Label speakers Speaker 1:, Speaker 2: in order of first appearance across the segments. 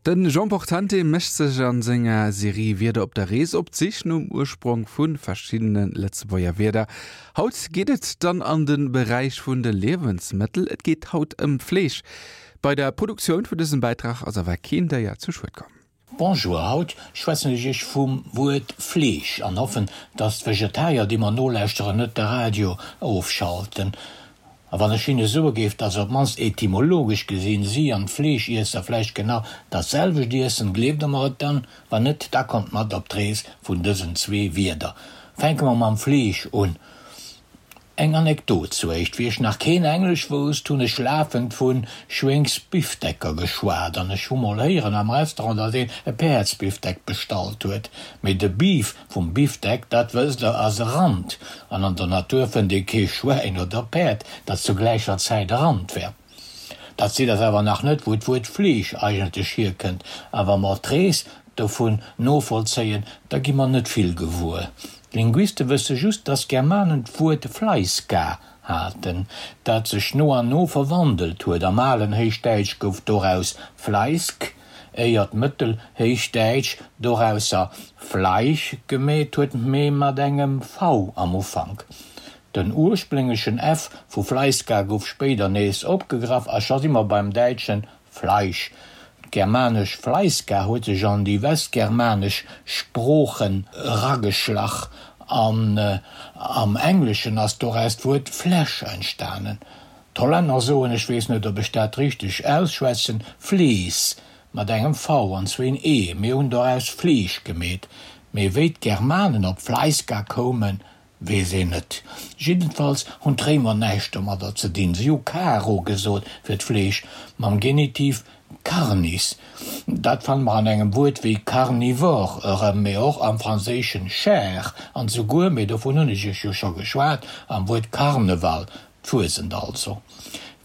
Speaker 1: De Jean Portante mécht sech a senger Serie Wierder op der Rees op d'Sich nom Ursprong vu verschiddene Lëtzebuerger Wierder. Haut geet et dann an de Beräich vun de Liewensmëttel. Et geet haut ëm Fleesch. Bei der Produktioun vun dësem Bäitrag ass awer keen Déier zu Schued komm.
Speaker 2: Bonjour, haut schwätzen ech iech vum Wuert Fleesch an hoffen, dass d'Vegetarier, déi mer nolauschteren, net de Radio ofschalten. A wann ech hinne soe géif, dass op d'mannst etymologesch gesinn si an d'Fleeschiesser vläicht genau dat selwecht iessen, gleeft der mer et dann? Wann net, da kommt mat op d'Rees vun dësen zwee Wierder. Fänke mer mam Fleesch un. Eng Anekdot zuéischt, Wéi ech nach keen Englesch wousst, hunn ech lafend vu Schwéngsbifdecker geschwat an ech hu mol héieren am Restaurant, datt een e Päerdsbifdeck bestallt huet. Mee de Beef vum Bifdeck, dat wësst der, ass e Rand an an der Natur fënnt ee kee Schwäin oder Päerd, dat zu gläicher Zäit e Rand wär. Dat seet eis awer nach net, wou d'Wuert Fleesch eigentlech hierkënnt. A wa mer d'Rees dovun novollzéien, da gi mer net vill gewuer. D'Linguiste wësse just, dass d'Germanen d'Wuert Fleiska haten, dat sech no an no verwandelt huet. Am alen Héichdäitsch gouf doraus Fleisk, éier d'Mëttelhéichdäitsch dorausser Fleisch gemeet huet, mee mat engem v am Ufank. Den ursplénglechen F vu Fleiska gouf spéider nees opgegraff a scho si mer beim däitschen Fleisch. D'germanesch Fleiska huet sech an déi westgermanesch Sproochen erageschlach an am Engleschen ass doraus d'Wuert flesh entstanen. D'Hollänner soen, ech weess net ob ech dat richteg ausschwätzen, vlees mat engem V an zwéin E. Mir hunn doraus Fleesch gemeet. Mee wéi d'Germanen op Fleiska koumen, Weess een net. Jiddenfalls hunn d'Réimer näischt domadder ze dinn. Si hu caro gesot fir d'Fleesch, mam Genitiv carnis. Dat fanne mer an engem Wuert wéi carnivore erëm, mee och am franséischen chair an souguer, mee dovun hunn ech iech jo scho geschwat, am Wuert Karneval, d'Fuesent also.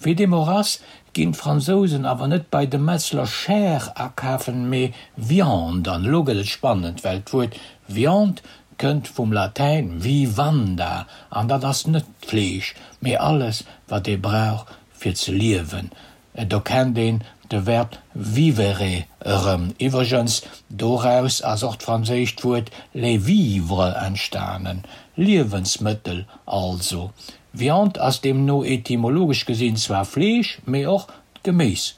Speaker 2: Wéi deem och ass, ginn d'Fransousen awer net bei de Metzler Chair akafen, mee Viande. An elo gëtt et spannend, well d'Wuert Viande Kënnt vum Latäin vivanda an dat ass net d'Fleesch, mee alles wat ee brauch fir ze liewen. Do kennt een de Verb vivere erëm. Iwwregens, doraus ass och d'franséischt Wuert les vivres entstanen, Liewensmëttel also. Viande ass deemno etymologesch gesinn zwar Fleesch, mee och d'Geméis.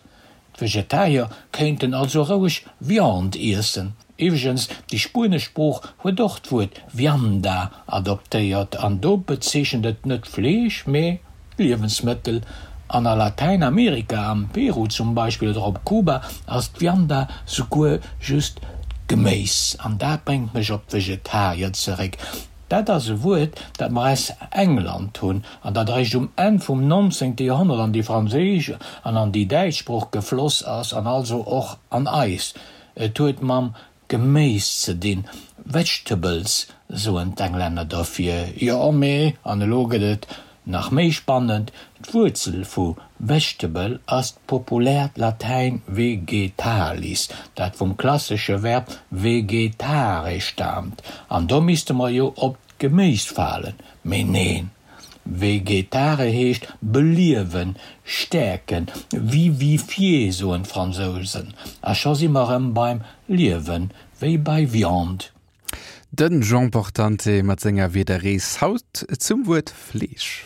Speaker 2: D'Vegetarier kéinten also roueg Viande iessen. Iwwregens, déi spuenesch Sprooch huet och d'Wuert vianda adoptéiert an do bezeechent et net Fleesch, mee d'Liewensmëttel. An a Latäinamerika, am Peru zum Beispill oder op Kuba, ass d'Vianda souguer just d'Geméis. An dat bréngt mech op d'Vegetarier zeréck. Dat ass e Wuert, dat mer aus England hunn an dat eréischt um Enn vum nonzéngte Joerhonnert an déi franséisch an an déi däitsch Sprooch gefloss ass an also och an eis. Et huet mam Geméis ze dinn, vegetables soen d'Englänner derfir. Jo, mee, an elo gëtt et nach méi spannend, d'Wuerzel vu vegetable ass d'populäert Latäin vegetalis, dat vum klassesche Verb vegetare staamt. An do misste mer jo op d'Geméis falen, mee neen, vegetare heescht beliewen, stäerken, vivifier soen d'Fransousen, a scho si mer erëm beim Liewen, wéi bei Viande.
Speaker 1: Den Jean Portante mat senger Wiederrees haut zum Wuert Fleesch.